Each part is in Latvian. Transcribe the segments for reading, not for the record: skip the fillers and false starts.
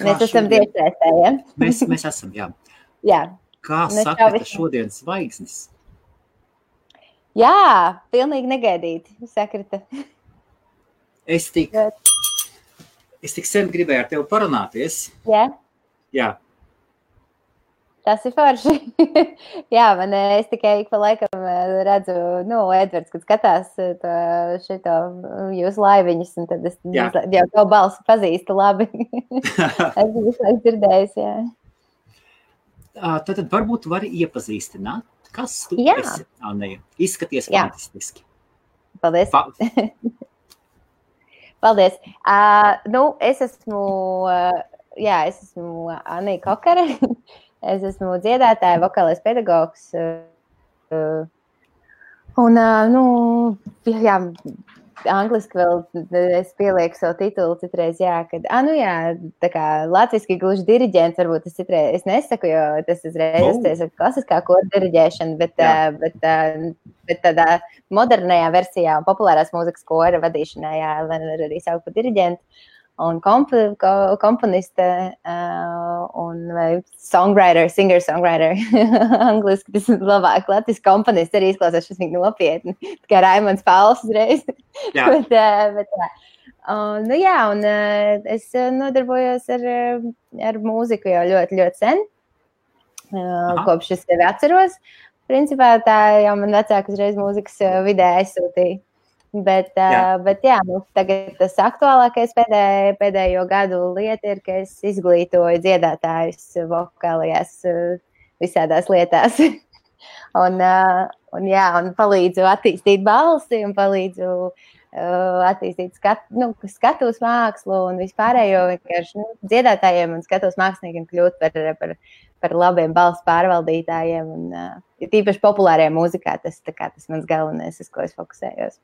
Mēs esam tiešsaistē, ja? Mēs esam, jā. Jā. Kā sakrita šodien zvaigznes? Jā, pilnīgi negaidīti sakrita. Es tik sen gribēju ar tevi parunāties. Jā? Jā. Tas ir forši. Jā, es tikai ik pa laikam redzu, Edvards, kad skatās šito jūsu laiviņus, un tad es jau tavu balsi pazīstu labi. Es visu laiku dzirdējis, jā. Tad varbūt vari iepazīstināt, kas tu esi, Anneja. Izskaties fantastiski. Paldies. Paldies. Es esmu Anneja Kokare. Es esmu dziedātāja, vokālais pedagogs. Un, angliski vēl es pielieku savu titulu citreiz, tā kā latviski gluži diriģents, varbūt es citreiz, es nesaku, jo tas uzreiz ir klasiskā koru diriģēšana, bet tādā modernajā versijā un populārās mūzikas kora vadīšanā, var arī saukt par diriģentu. Un komponiste un songwriter, singer-songwriter. Angliski tas ir labāk. Latviski komponists arī izklausās šis nopietni. Tā kā Raimonds Pauls uzreiz. Jā. Un es nodarbojos ar mūziku jau ļoti, ļoti sen. Kopš es sevi atceros. Principā tā jau man vecāki uzreiz mūzikas vidē aizsūtīja. Bet tagad tas aktuālākais pēdējo gadu lieta ir, ka es izglītoju dziedātājus vokālajās visādās lietās. un palīdzu attīstīt balsi un palīdzu attīstīt skatuves mākslu un vispārējo vienkārši dziedātājiem un skatuves māksliniekiem kļūt par labiem balsu pārvaldītājiem. Un tīpaši populārajā mūzikā tas mans galvenais, uz ko es fokusējos.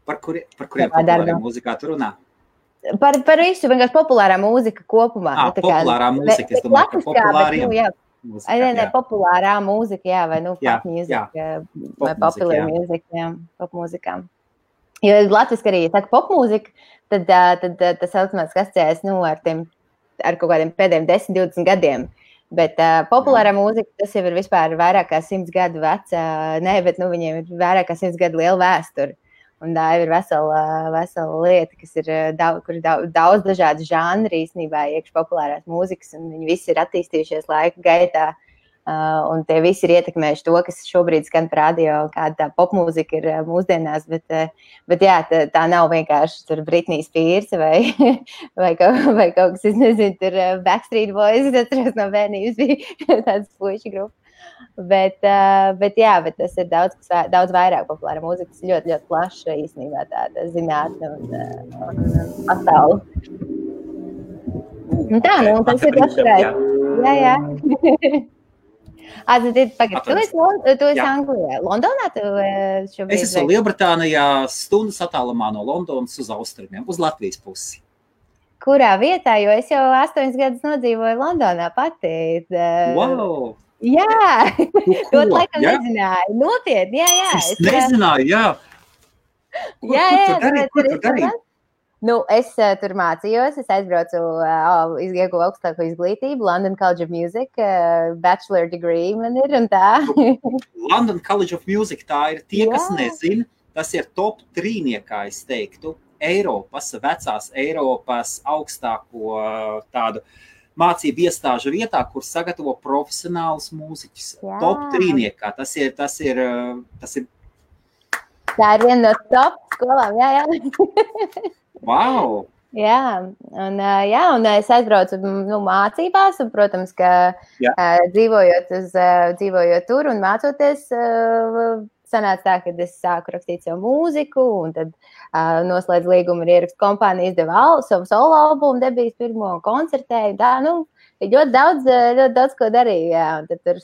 Par kuriem populārajā mūzikā tu runā? Par visu, vienkārši populārā mūzika kopumā. Populārā mūzika, es domāju, ka populāriem mūzika. Populārā mūzika, vai pop mūzika, vai popular mūzika, pop mūzikām. Jo latviski arī, ja saka pop mūzika, tad tas automātiski asociējas, ar kaut kādiem pēdējiem 10-20 gadiem. Bet populārā mūzika, tas jau ir vispār vairāk kā 100 gadu veca, viņiem ir vairāk kā 100 gadu liela vēsture. Un tā ir vesela lieta, kas ir kur daudz dažādu žanri īstenībā iekš populārās mūzikas, un viņi visi ir attīstījušies laika gaitā, un tie visi ir ietekmējuši to, kas šobrīd skan par radio, kāda tā popmūzika ir mūsdienās, bet tā nav vienkārši tur Britney Spears vai kaut kas, es nezinu, tur Backstreet Boys, atceros no bērnības bija tāds puiši grupa. Bet tas ir daudz vairāk populāra mūzika. Tas ir ļoti, ļoti plaša īstenībā tāda zinātne un pasaule. Tas ir plašreiz. Jā. Tu esi Anglijā. Londonā tu šobrīd? Es esmu Lielbritānijā, stundas attālumā no Londonas uz austrumiem, uz Latvijas pusi. Kurā vietā? Jo es jau 8 gadus nodzīvoju Londonā pati. Wow! Jā, to laikam nezināju. Nopietni, jā. Es nezināju, jā. Ko tu darīji? Es tur mācījos, es aizbraucu, ieguvu augstāko izglītību, London College of Music, bachelor degree man ir un tā. London College of Music, tā ir tie, kas nezina, tas ir top 3, es teiktu, vecās Eiropas augstāko tādu mācību iestāžu vietā, kur sagatavo profesionālus mūziķus. Top 3. Tas ir. Tā ir viena no top skolām, jā. Wow! Jā, un es aizbraucu mācībās, un, protams, ka dzīvojot tur un mācoties, sanāca tā, ka es sāku rakstīt savu mūziku, un tad noslēdzu līgumu ar ierakstu kompāniju, izdeva savu solo albumu, debijas pirmo koncertēju, ļoti daudz ko darīju, jā, un tad tur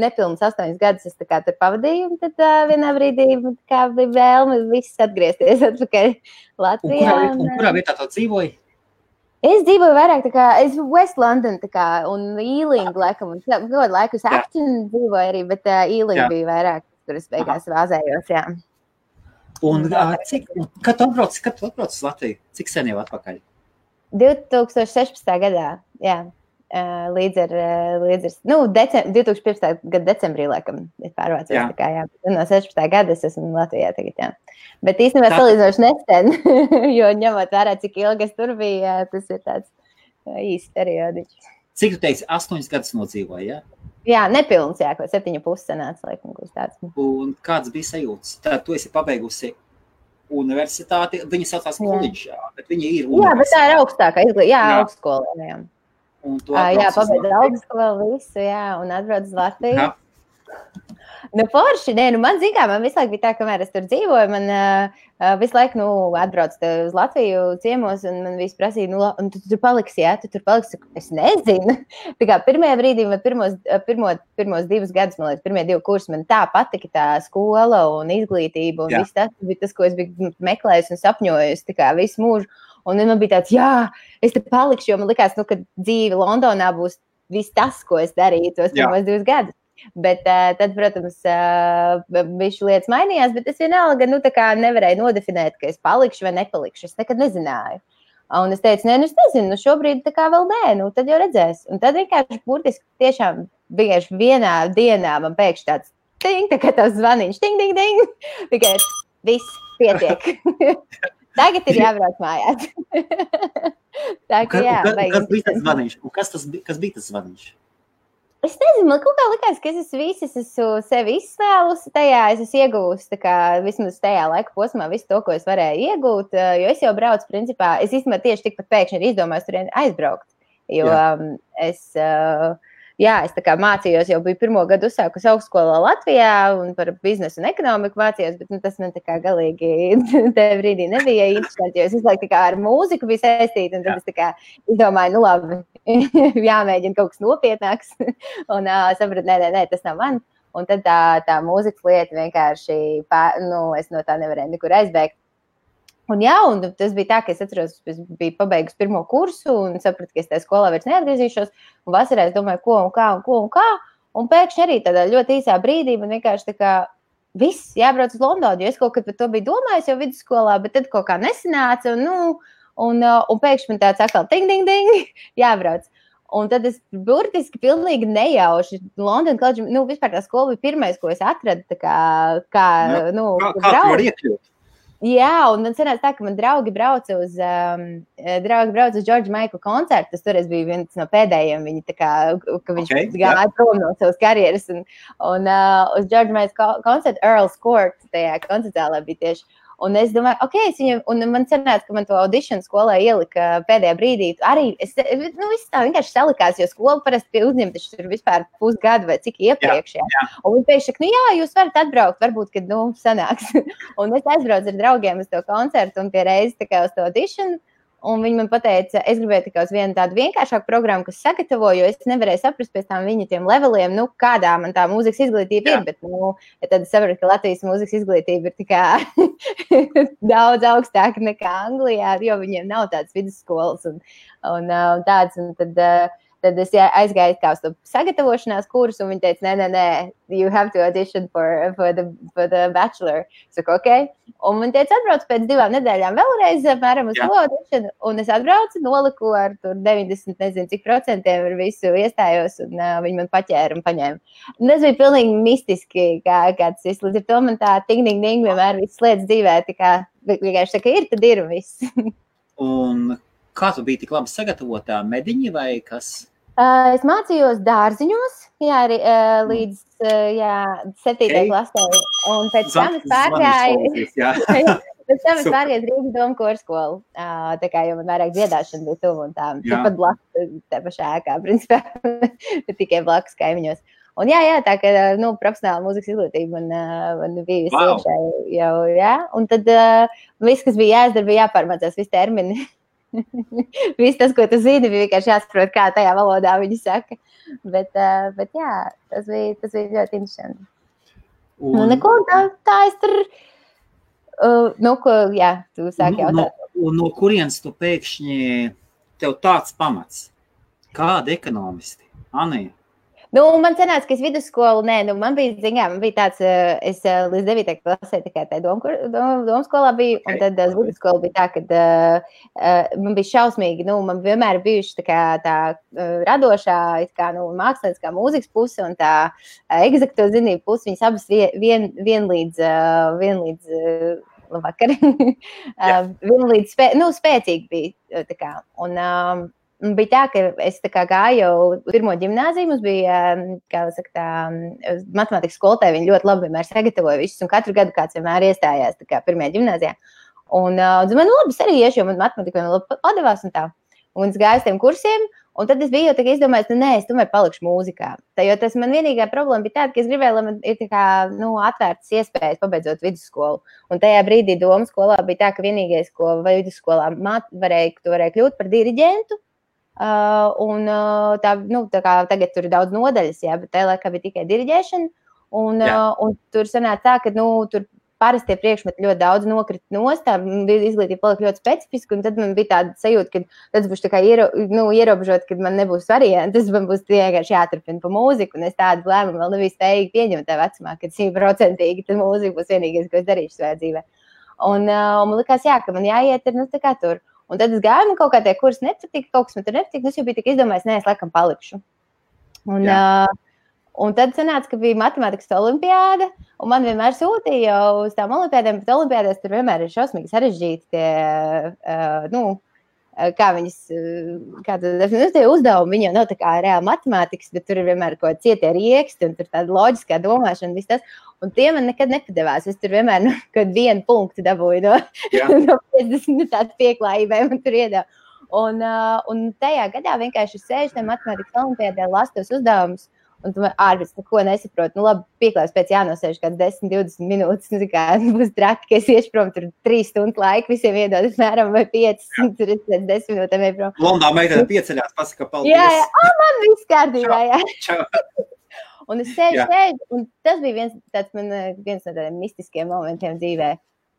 nepilnus 8 gadus es tā kā tur pavadīju, un tad vienā brīdī kā bija vēlme viss atgriezties atpakaļ Latvijā. Un kurā vietā tu dzīvoji? Es dzīvoju vairāk tā kā, es West London tā kā, un Ealing, laikam, un kaut laikus Acton dzīvoju arī, bet Ealing bija vairāk, kur es beigās vāzējos, jā. Un kad tu atbrauc uz Latviju? Cik sen jau atpakaļ? 2016. gadā, jā. Līdz ar 2015. gada decembrī, laikam, es pārvācos. Tā kā, jā. No 16. gada es esmu Latvijā tagad, jā. Bet īstenībā salīdzinoši nesen, jo ņemot vērā, cik ilgi es tur biju, tas ir tāds īsts periodiķis. Cik tu teiksi, 8 gadus nodzīvoji, jā? Jā, nepilns, jā, ko 7,5 sanāca, laikam, kaut tāds. Un kāds bija sajūtas? Tad tu esi pabeigusi universitāti, viņi saucās koledžā, bet viņi ir universitāti. Jā, bet tā ir augstākā izglītība, jā, augstskola, jā. Jā, pabeidz augstskolu visu, jā, un atbrauc uz Latviju. Nu, forši, man zin kā, man visu laiku bija tā, kamēr es tur dzīvoju, man visu laiku, atbrauc uz Latviju ciemos, un man visi prasīja, un tu tur paliksi, jā, tu tur paliksi, es nezinu. Tā kā pirmajā brīdī, man pirmos 2 gadus, man liekas, pirmie 2 kursi, man tā patika tā skola un izglītība, un viss tas bija tas, ko es biju meklējusi un sapņojusi, tā kā visu mūžu. Un man bija tāds, jā, es te palikšu, jo man likās, ka dzīve Londonā būs viss tas, ko es darīju tos pirmos 2 gadus. Bet tad, protams, bišķi lietas mainījās, bet es vienalga, tā kā nevarēju nodefinēt, ka es palikšu vai nepalikšu. Es nekad nezināju. Un es teicu, es nezinu, šobrīd tā kā vēl nē, tad jau redzēs. Un tad vienkārši burtiski tiešām vienkārši vienā dienā man pēkšņi tāds ting, tā kā tavs zvaniņš, ting, ting, ting. Tikai viss pietiek. Tagad ir jābrauc mājās. Tā kā jā. Kas bija tas zvaniņš? Un kas bija tas zvaniņš? Es nezinu, man kaut kā likās, ka es esmu sevi izsvēlusi tajā, es esmu iegūst, tā kā vismaz tajā laika posmā visu to, ko es varēju iegūt, jo es jau braucu, principā, es īstenībā tieši tikpat pēkšņi ir izdomājis turien aizbraukt, jo es tā kā mācījos, jau biju 1. gadu uzsākus augstskolā Latvijā un par biznesu un ekonomiku mācījos, bet tas man tā kā galīgi tajā brīdī nebija interesanti, jo es visu laiku tā kā ar mūziku biju saistīta, un tad es tā kā izdomāju, labi, jāmēģina kaut kas nopietnāks, un sapratu, nē, tas nav man, un tad tā mūzikas lieta vienkārši, es no tā nevarēju nekur aizbēgt. Un tas bija tā, ka es atceros, es biju pabeigusi 1. kursu un sapratu, ka es tajā skolā vairs neatgriezīšos, un vasarā es domāju, ko un kā, un pēkšņi arī tādā ļoti īsā brīdī man vienkārši tā kā viss jābrauc uz Londonu, jo es kaut kad par to biju domājis jau vidusskolā, bet tad kaut kā nesanāca, un pēkšņi man tāds atkal ting, ting, ting, jābrauc. Un tad es burtiski pilnīgi nejauši London College, vispār tā skola bija pirmais, ko es atradu, tā kā tu var iekļūt? Jā, un man sanāca tā, ka man draugi brauca uz George Michael koncertu. Tas toreiz bija viens no pēdējiem. Viņi tā kā, ka viņš gāja prom no savas karjeras. Un uz George Michael koncertu Earl's Court tajā koncertālā bija tieši. Un es domāju, un man sanāca, ka man to audīšanu skolā ielika pēdējā brīdī. Arī viss tā vienkārši salikās, jo skola parasti uzņem taču tur vispār pusgadu vai cik iepriekš. Jā. Un viņi pēkšņi saka, jūs varat atbraukt, varbūt, kad, sanāks. Un es aizbraucu ar draugiem uz to koncertu un pie reizes tā kā uz to audīšanu. Un viņi man pateica, es gribēju tikai uz vienu tādu vienkāršāku programmu, kas sagatavoju, jo es nevarēju saprast pēc tam viņa tiem leveliem, kādā man tā mūzikas izglītība ir, bet tad es sapratu, ka Latvijas mūzikas izglītība ir tikai daudz augstāka nekā Anglijā, jo viņiem nav tādas vidusskolas un tādas, un tad es aizgāju kā uz to sagatavošanās kursu, un viņi teica, nē, you have to audition for the bachelor. Es saku, ok. Un man teica, atbrauc pēc 2 nedēļām vēlreiz, apmēram uz to audition, un es atbraucu, noliku ar tur 90, nezinu, cik procentiem ar visu iestājos, un viņi man paķēra un paņēma. Un tas bija pilnīgi mistiski, kā tas viss. Līdz ar to man tā ting-ding vienmēr viss lietas dzīvē, tā kā vienkārši tā, ka ir, tad ir un viss. Un kā tu biji tik labi sagatavotā, mediņi vai kas? Es mācījos dārziņos, arī līdz 7. klasē, un pēc tam es pārgāju Rīgas domu korskolu, tā kā jau man vairāk dziedāšana bija tuvu un tā, pat blakus, tā pašā ēkā, principā, tikai blakus kaimiņos. Un tā kā, profesionāla mūzikas izglītība man bija iekšā jau, un tad viss, kas bija jāizdara, bija jāpārmācās, visi termini. Viss tas, ko tu zini, bija vienkārši jāsaprot, kā tajā valodā viņi saka. Bet tas bija ļoti interesanti. Neko, tā es tur, tu sāki jautāt. Un no kurienes tu pēkšņi tev tāds pamats? Kādi ekonomisti? Anija? Man sanāca, ka es vidusskolu, man bija tāds, es līdz 9. klasē tikai tā domskolā biju, un tad uz vidusskolu bija tā, ka man bija šausmīgi, man vienmēr bijuši tā radošā, mākslinieckā mūzikas puse un tā egzakto zinību puse, viņas abas vienlīdz labvakar, vienlīdz spēcīgi bija, tā kā, un bija tā, ka es gāju jau pirmo ģimnāziju, mums bija, kā saka, matemātikas skolotāja, viņi ļoti labi vienmēr sagatavoja visus, un katru gadu kāds vienmēr iestājās pirmajā ģimnāzijā. Un man labi, es arī iešu, jo man matemātika vienmēr labi padevās un tā. Un es gāju uz tiem kursiem, un tad es biju jau izdomājis, es tomēr palikšu mūzikā. Jo tas man vienīgā problēma bija tāda, ka es gribēju, lai man ir atvērtas iespējas pabeidzot vidusskolu. Un tajā brīdī domu skolā bija tā, ka vienīgais, ko vidusskolā varēja kļūt par diriģentu. Tā kā tagad tur ir daudz nodaļas, bet tajā laikā bija tikai diriģēšana, un tur sanāca tā, ka, tur parastie priekšmeti ļoti daudz nokrita nost, tā izglītība palika ļoti specifiska, un tad man bija tāda sajūta, ka tas būs tā kā ierobežot, ka man nebūs varianti, tas man būs vienkārši jāturpina pa mūziku, un es tādu lēmumu vēl nebiju spējīgi pieņemt tā vecumā, kad 100% tā mūzika būs vienīgais, ko es darīšu savā dzīvē. Un man likās, ka man jāiet ir, tā kā tur. Un tad es gāju, man kaut kā tie kursi nepatika, kaut kas man tur nepatika, es jau biju tik izdomājis, es laikam palikšu. Un tad sanāca, ka bija matemātikas olimpiāda, un man vienmēr sūtīja jau uz tām olimpiādēm, bet olimpiādēs tur vienmēr ir šausmīgi sarežģīti tie, kā viņas, tie uzdevumi, viņi jau nav tā kā reāli matemātikas, bet tur ir vienmēr kaut cietie rieksti, un tur tāda loģiskā domāšana, viss tas. Un tie man nekad nepadevās. Es tur vienmēr kaut vienu punktu dabūju no 50 tādu pieklājībai man tur iedeva. Un tajā gadā vienkārši sēžu tajā matemātikas olimpiādē, lasu tos uzdevumus, un tu ārpēc neko nesaproti. Labi, pieklājības pēc jānosēž kāds 10-20 minūtes, kā būs traki, ka es iešu prom tur 3 stundu laiku, visiem iedod apmēram vai 5, tur es pēc 10 minūtēm ej prom. Blondā meitene pieceļās, pasaka paldies. Jā, man viss kārtībā, jā. Čau. Un es sēžu, un tas bija viens no tādiem mistiskiem momentiem dzīvē,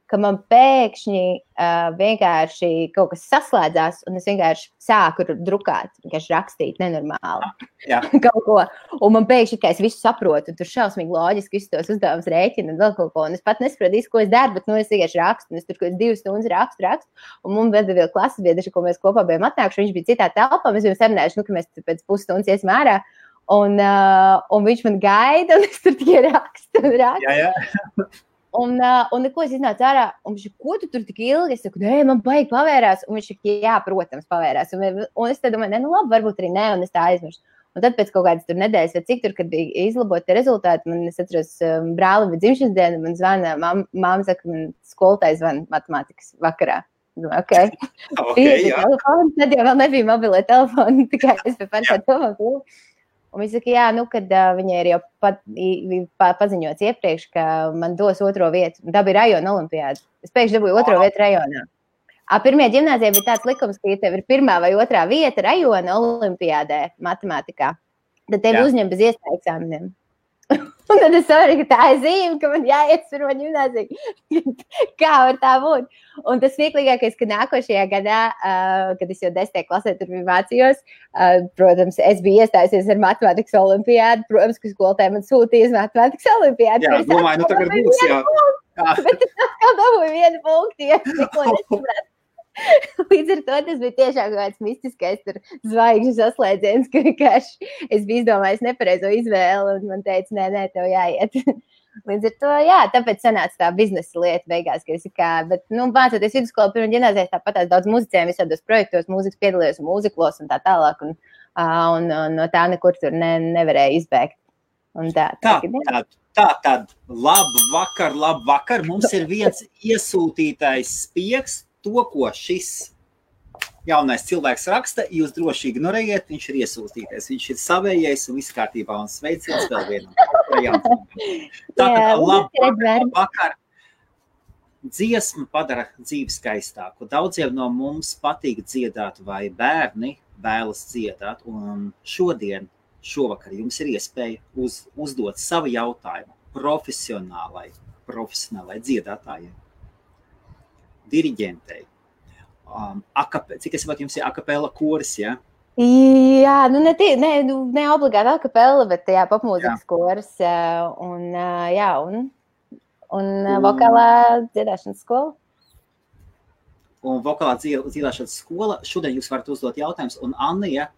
ka man pēkšņi vienkārši kaut kas saslēdzās, un es vienkārši sāku drukāt, vienkārši rakstīt nenormāli kaut ko. Un man pēkšņi, ka es visu saprotu, un tur šausmīgi loģiski visus tos uzdevumus rēķinu un vēl kaut ko. Un es pat nesaprotu, ko es daru, bet es vienkārši rakstu, un es tur kaut 2 stundas rakstu. Un mums bija vēl klases biedri, ko mēs kopā bijām atnākuši, viņš bija citā telpā, mēs bijām sarunājuši, ka mēs pēc pusstundas iesim ārā. Un viņš man gaida, un es tur tikai rakstu. Jā. Un neko es iznācu ārā, un viņš, ko tu tur tik ilgi? Es saku, man baigi pavērās, un viņš, jā, protams, pavērās. Un es te domāju, labi, varbūt arī ne, un es tā aizmirstu. Un tad pēc kaut kādas tur nedēļas, vai cik tur, kad bija izlaboti rezultāti, man es atceros brāli bija dzimšanas diena, man zvana, mamma saka, man skolotāji zvana matemātikas vakarā. Okay. Telefonu, tad jau vēl nebija mobilē telefoni, tikai es pēc pārkā domāju. Un viņi saka, kad viņai ir jau paziņots iepriekš, ka man dos 2. vietu. Tā bija rajona olimpiāda. Es pēkšņi dabūju 2. vietu rajonā. Pirmajā ģimnāzijā bija tāds likums, ka ja tev ir 1. vai 2. vieta rajona olimpiādē matemātikā, tad tevi uzņem bez iestāju eksāmeniem. Un tad es saprotu, ka tā ir zīme, ka man jāiet pirmā ģimnāzija. Kā var tā būt? Un tas smieklīgākais, ka nākošajā gadā, kad es jau 10. klasē tur mācījos, protams, es biju iestājusies ar matemātikas olimpiādu. Protams, ka skolotāji man sūtīja uz matemātikas olimpiādu. Jā, domāju, tagad būs, jā. Bet es atkal dabūju 1 punktu, ja neko nesapratu. Līdz ar to tas bija tiešām kaut kāds mistiskais zvaigžņu saslēdziens, ka vienkārši es biju izdomājis nepareizo izvēli, un man teica, nē, tev jāiet. Līdz ar to, tāpēc sanāca tā biznesa lieta beigās, ka es bet, mācoties vidusskolu pirmā ģimnāzijā, tāpat daudz muzicējiem visādos projektos, mūzikas piedalījos un mūziklos un tā tālāk, un no tā nekur tur nevarēja izbēgt. Un Tad, labvakar, mums ir viens iesūtītais spiegs. To, ko šis jaunais cilvēks raksta, jūs droši ignorējiet, viņš ir iesūtītais, viņš ir savējais un viss kārtībā un sveiciens vēl vienam. Tātad, labvakar, dziesma padara dzīvi skaistāku. Daudziem no mums patīk dziedāt vai bērni vēlas dziedāt, un šovakar jums ir iespēja uzdot savu jautājumu profesionālai dziedātājai. Diriģentei. Cik es saprotu, jums ir akapela koris, ja? Jā, ne obligāti akapella, bet jā, popmūzikas kurs un vokālā dziedāšanas skola. Un vokālā dziedāšanas skola. Šodien jūs varat uzdot jautājumus, un Annija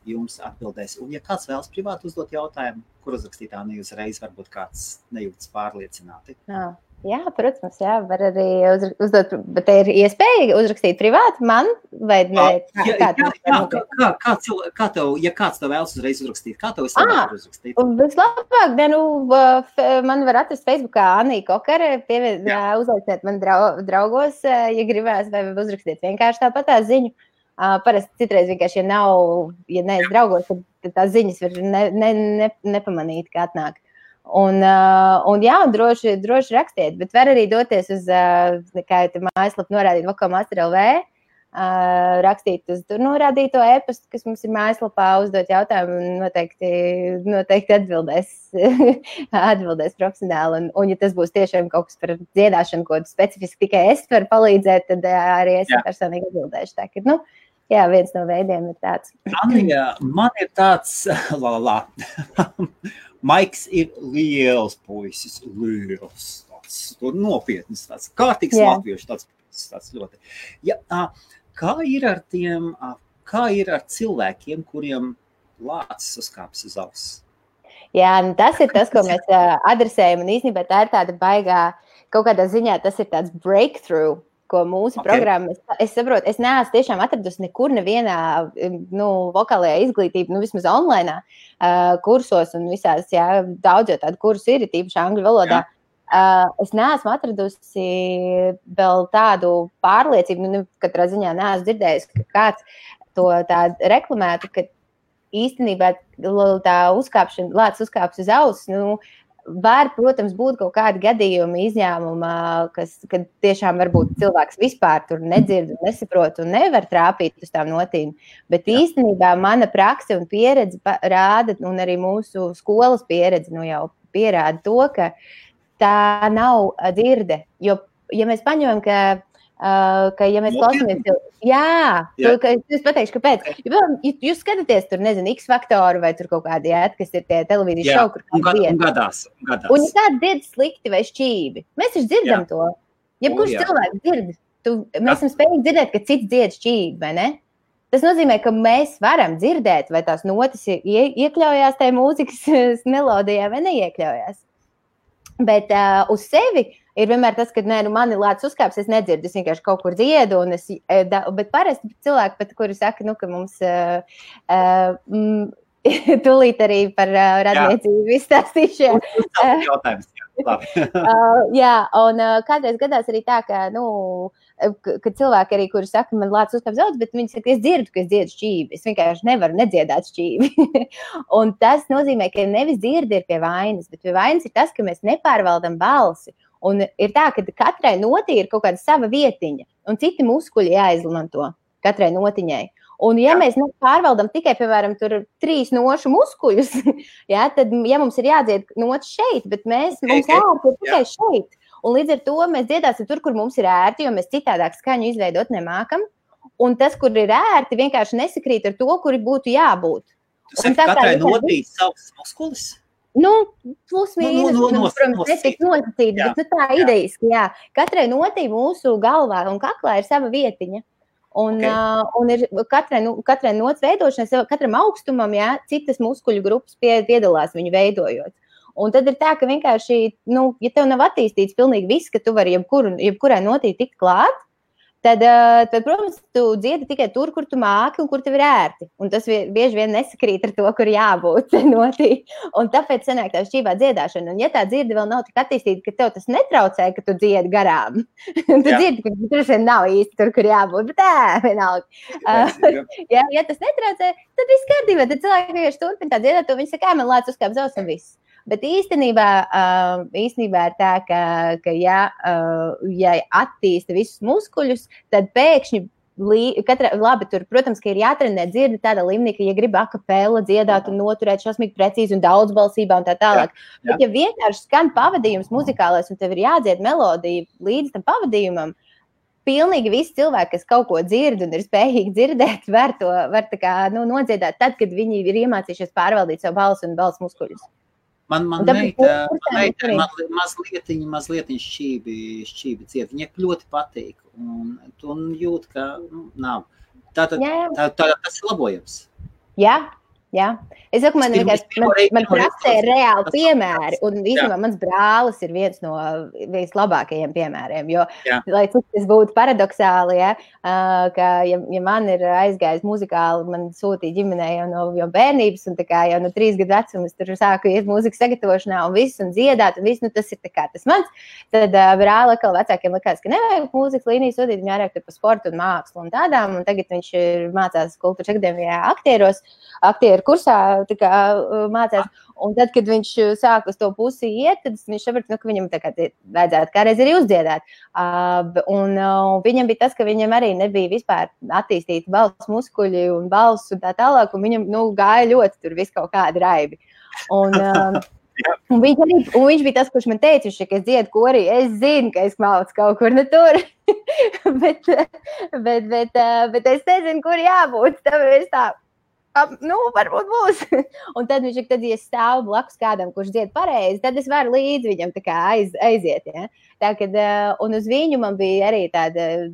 jums atbildēs. Un ja kāds vēlas privāti uzdot jautājumu, kur uzrakstīt Annija uzreiz, varbūt kāds nejūtas pārliecināti. Jā, protams, var arī uzdot, bet te ir iespēja uzrakstīt privāti man, vai ne? Kā tev, ja kāds tev vēlas uzreiz uzrakstīt, kā tev vislabāk uzrakstīt? Vislabāk, man var atrast Facebookā Annija Kokare, uzlaiciniet man draugos, ja gribēs, vai uzrakstīt vienkārši tāpat tā ziņu. Parasti citreiz vienkārši, ja neesi draugos, tad tās ziņas var nepamanīt, kā atnāk. Un droši rakstiet, bet var arī doties uz, kā jau mājaslapu norādīt, Vokalmaster.lv, rakstīt uz tur norādīto e-pastu, kas mums ir mājaslapā, uzdot jautājumu un noteikti atbildēs profesionāli. Un ja tas būs tiešām kaut kas par dziedāšanu, ko specifiski tikai es varu palīdzēt, tad arī es personīgi atbildēšu. Tā, ka, viens no veidiem ir tāds. Annija, man ir tāds, Maiks ir liels puisis, tāds nopietnis, tāds kārtīgs latviešu, tāds ļoti. Kā ir ar cilvēkiem, kuriem lācis uzkāpjas uz auss? Jā, tas ir tas, ko mēs adresējam, un īstenībā tā ir tāda baigā, kaut kādā ziņā tas ir tāds breakthrough, ko mūsu programma, es saprotu, es neesmu tiešām atradusi nekur nevienā vokālajā izglītība, vismaz online kursos un visās, daudz jau tādu kursu ir, tīpaši angļu valodā. Es neesmu atradusi vēl tādu pārliecību, katrā ziņā neesmu dzirdējusi, ka kāds to tādu reklamētu, ka īstenībā tā lācis uzkāps uz auss, var, protams, būt kaut kādi gadījumi, izņēmumi, kad tiešām varbūt cilvēks vispār tur nedzird un nesaprot un nevar trāpīt uz tām notīm. Bet īstenībā mana prakse un pieredze rāda, un arī mūsu skolas pieredze jau pierāda to, ka tā nav dzirde. Jo, ja mēs paņemam, ka ja mēs klausāmies, es pateikšu, kāpēc. Ja jūs skatāties tur, nezinu, X faktoru vai tur kaut kādi, kas ir tie televīzijas šovi, kur kāds dzied. Gadās. Un ja kāds dzied slikti vai šķīvi, mēs taču dzirdam to. Jebkurš cilvēks dzird, mēs esam spējīgi dzirdēt, ka cits dzied šķīvi, vai ne? Tas nozīmē, ka mēs varam dzirdēt, vai tās notis iekļaujās tajā mūzikas melodijā vai neiekļaujās. Bet uz sevi ir vienmēr tas, ka mani lācis uzkāps, es nedzirdu, es vienkārši kaut kur dziedu, bet parasti cilvēki, kuri saka, ka mums tūlīt arī par radniecību izstāstīšu. Jautājums, un kādreiz gadās arī tā, ka cilvēki arī, kuri saka, man lācis uzkāps daudz, bet viņi saka, es dzirdu, ka es dziedu šķīvi, es vienkārši nevaru nedziedāt šķīvi. Un tas nozīmē, ka nevis dzirdi ir pie vainas, bet pie vainas ir tas, ka mēs nepārvaldam balsi. Un ir tā, ka katrai notī ir kaut kāda sava vietiņa, un citi muskuļi jāizmanto katrai notiņai. Un ja mēs pārvaldam tikai, piemēram, tur 3 nošu muskuļus, tad, ja mums ir jādzied nots šeit, bet mums ērti ir tikai šeit. Un līdz ar to mēs dziedāsim tur, kur mums ir ērti, jo mēs citādāk skaņu izveidot nemākam. Un tas, kur ir ērti, vienkārši nesakrīt ar to, kuri būtu jābūt. Tu saki, katrai notī savs muskulis? Plus mīnus, protams, netiek nosacīti, bet tā idejiski, Katrai notī mūsu galvā un kaklā ir sava vietiņa. Un ir katrai nots veidošanai, katram augstumam, citas muskuļu grupas piedalās viņu veidojot. Un tad ir tā, ka vienkārši, ja tev nav attīstīts pilnīgi viss, ka tu vari jebkurai notī tikt klāt, tad, protams, tu dziedi tikai tur, kur tu māki un kur tev ir ērti. Un tas bieži vien nesakrīt ar to, kur jābūt notī. Un tāpēc sanāk tā šķīvā dziedāšana. Un ja tā dzirde vēl nav tik attīstīta, ka tev tas netraucē, ka tu dziedi garām. Tu dzirdi, ka tur nav īsti tur, kur jābūt. Bet vienalga. Ja tas netraucē, tad viss kārtībā. Tad cilvēki vienkārši turpina tā dziedāt, to viņi saka, man lācis uzkāp uz auss un viss. Bet īstenībā ir tā, ka ja attīsta visus muskuļus, tad pēkšņi, tur, protams, ka ir jātrenē dzirde tādā līmenī, ka, ja grib akapela dziedāt un noturēt šausmīgi precīzi un daudzbalsībā un tā tālāk. Bet ja vienkārši skan pavadījums muzikālais un tev ir jādzied melodija līdz tam pavadījumam, pilnīgi visi cilvēki, kas kaut ko dzird un ir spējīgi dzirdēt, var tā kā, nodziedāt tad, kad viņi ir iemācījušies pārvaldīt savu balsu un balsu muskuļus. Man meita mazliet šķībi dzied. Viņai ļoti patīk un jūt, ka nav. Tas ir labojams. Jā. Es saku, man praksē ir reāli piemēri, un īstenībā mans brālis ir viens no vislabākajiem piemēriem, jo, lai cik tas būtu paradoxāli, ka, ja man ir aizgājis muzikāli, man sūtīja ģimenē jau bērnības, un tā kā jau no 3 gadu vecuma es tur sāku iet mūzikas sagatavošanā un viss, un dziedāt, un viss, tas ir tā kā tas mans, tad brāli atkal vecākiem likās, ka nevajag mūzikas līniju sūtīt, viņi vairāk tur par sportu un mākslu un tādām, un tagad viņš mācās Kultūras akadēmijā aktieru kursā, tā kā mācās, un tad, kad viņš sāk uz to pusi iet, tad viņš saprata, ka viņam tā kā vajadzētu kādreiz arī uzdziedāt. Un viņam bija tas, ka viņam arī nebija vispār attīstīti balss muskuļi un balss un tā tālāk, un viņam, gāja ļoti tur viss kaut kādi raibi. Un viņš bija tas, kurš man teica, ka es dziedu korī, es zinu, ka es maucu kaut kur tur, bet es nezinu, kur jābūt, tāpēc tā. Varbūt būs. Un tad viņš, ja es stāvu blakus kādam, kurš dzied pareizi, tad es varu līdz viņam tā kā aiziet, ja. Tā, kad, un uz viņu man bija arī tāda,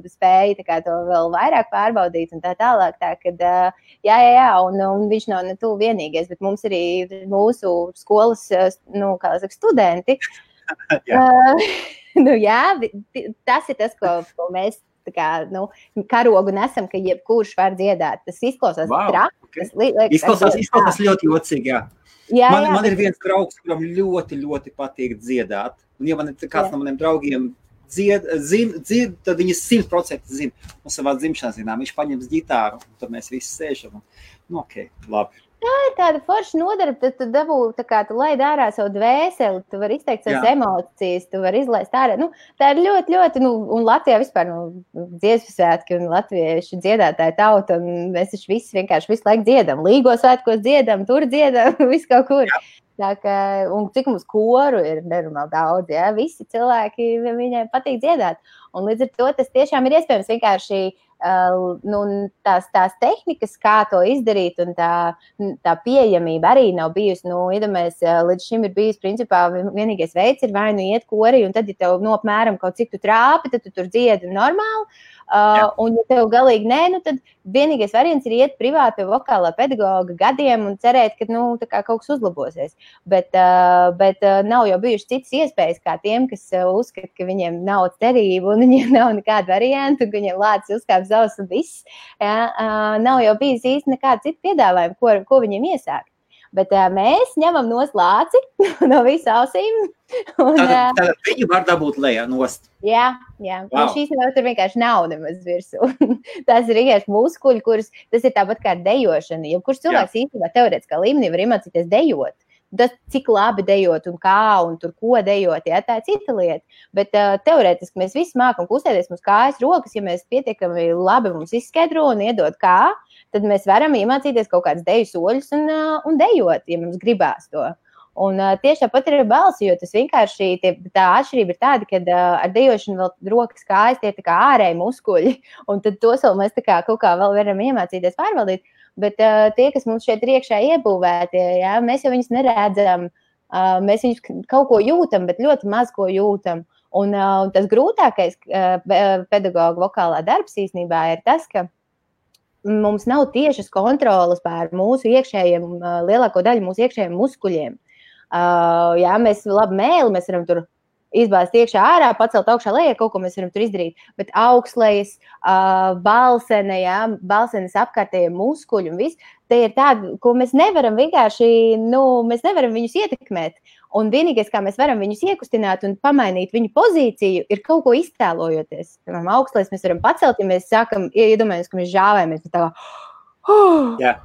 spēja tā kā to vēl vairāk pārbaudīt un tā tālāk. Tā, kad, un viņš nav ne tu vienīgais, bet mums arī mūsu skolas, studenti. Tas ir tas, ko mēs tā kā, karogu nesam, ka jebkurš var dziedāt. Tas izklausās traki. Izklausās ļoti jocīgi, jā. Man ir viens draugs, kuram ļoti, ļoti patīk dziedāt. Un ja man ir kāds no maniem draugiem dzird, tad viņi 100% zina. Un savā dzimšanas dienā viņš paņems ģitāru, un tad mēs visi sēžam. Labi. Tā ir tāda forša nodarbe, tad tu dabū, tā kā tu laid ārā savu dvēseli, tu vari izteikt savas emocijas, tu vari izlaist ārā. Tā ir ļoti, ļoti, un Latvijā vispār, dziesmu svētki un latvieši dziedātāji tauta, un mēs taču visi vienkārši visu laiku dziedam. Līgo svētkos dziedam, tur dziedam, visu kaut kur. Tā kā, un cik mums koru ir nenormāli daudz, ja? Visi cilvēki, viņiem patīk dziedāt. Un līdz ar to tas tiešām ir iespējams vienkārši tās tehnikas, kā to izdarīt, un tā pieejamība arī nav bijusi. Iedomājies, līdz šim ir bijis, principā, vienīgais veids ir vai iet korī, un tad, ja tev apmēram kaut cik tu trāpi, tad tu tur dziedi normāli. Un ja tev galīgi nē, tad vienīgais variants ir iet privāti pie vokālā pedagoga gadiem un cerēt, ka tā kā kaut kas uzlabosies. Bet nav jau bijušas citas iespējas kā tiem, kas uzskata, ka viņiem nav cerību un viņiem nav nekāda varianta, un ka viņiem lācis uzkāp zavs un viss. Nav jau bijis īsti nekāda cita piedāvājuma, ko viņiem iesākt. Bet mēs ņemam nost lāci no visu ausīm. Tad viņu var dabūt lejā nost. Jā. Wow. Šīs nav tur vienkārši nav nemaz virsū. Tas ir vienkārši muskuļi, tas ir tāpat kā dejošana. Jebkurš cilvēks īstenībā teorētiskā līmenī var iemācīties dejot. Tas, cik labi dejot un kā un tur ko dejot, tā ir cita lieta. Bet teorētiski mēs visi mākam kustēties mums kājas, rokas, ja mēs pietiekami labi mums izskaidro un iedod kā, tad mēs varam iemācīties kaut kādas deju soļus un dejot, ja mums gribās to. Un tieši tāpat ir balsi, jo tas vienkārši tā atšķirība ir tāda, ka ar dejošanu vēl rokas kājas tie ir tā kā ārēji muskuļi, un tad tos vēl mēs tā kā kaut kā vēl varam iemācīties pārvaldīt. Bet tie, kas mums šeit ir iekšā iebūvēti, mēs jau viņus neredzam, mēs viņus kaut ko jūtam, bet ļoti maz ko jūtam. Un tas grūtākais pedagoga vokālā darbs īstenībā ir tas, ka mums nav tiešas kontrolas pār mūsu iekšējiem, lielāko daļu mūsu iekšējiem muskuļiem. Mēs labi mēli, mēs varam tur izbāzt iekšā ārā, pacelt augšā lejā, kaut ko mēs varam tur izdarīt, bet augstlejas, balsenes apkārtējie muskuļi un viss, tie ir tādi, ko mēs nevaram vienkārši, mēs nevaram viņus ietekmēt. Un vienīgais, kā mēs varam viņus iekustināt un pamainīt viņu pozīciju, ir kaut ko iztēlojoties. Piemēram, augstlejas mēs varam pacelt, ja mēs sākam, iedomājamies, ka mēs žāvējamies, bet tā kā,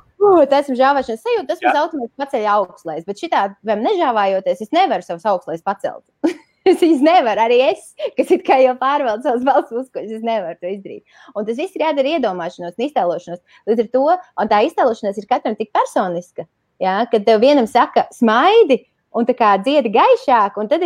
tas ir žāvēšanas sajūta, tas mums automātiski paceļ augstlejas, bet šitādi nežāvājoties, es nevaru savus augstlejas pacelt. Es nevaru, arī es, kas it kā jau pārvaldu savus balss muskuļus, es nevaru to izdarīt. Un tas viss ir jādara iedomāšanos un iztēlošanos. Līdz ar to, un tā iztēlošanās ir katram tik personiska, kad tev vienam saka smaidi un tā kā dziedi gaišāk, un tad ir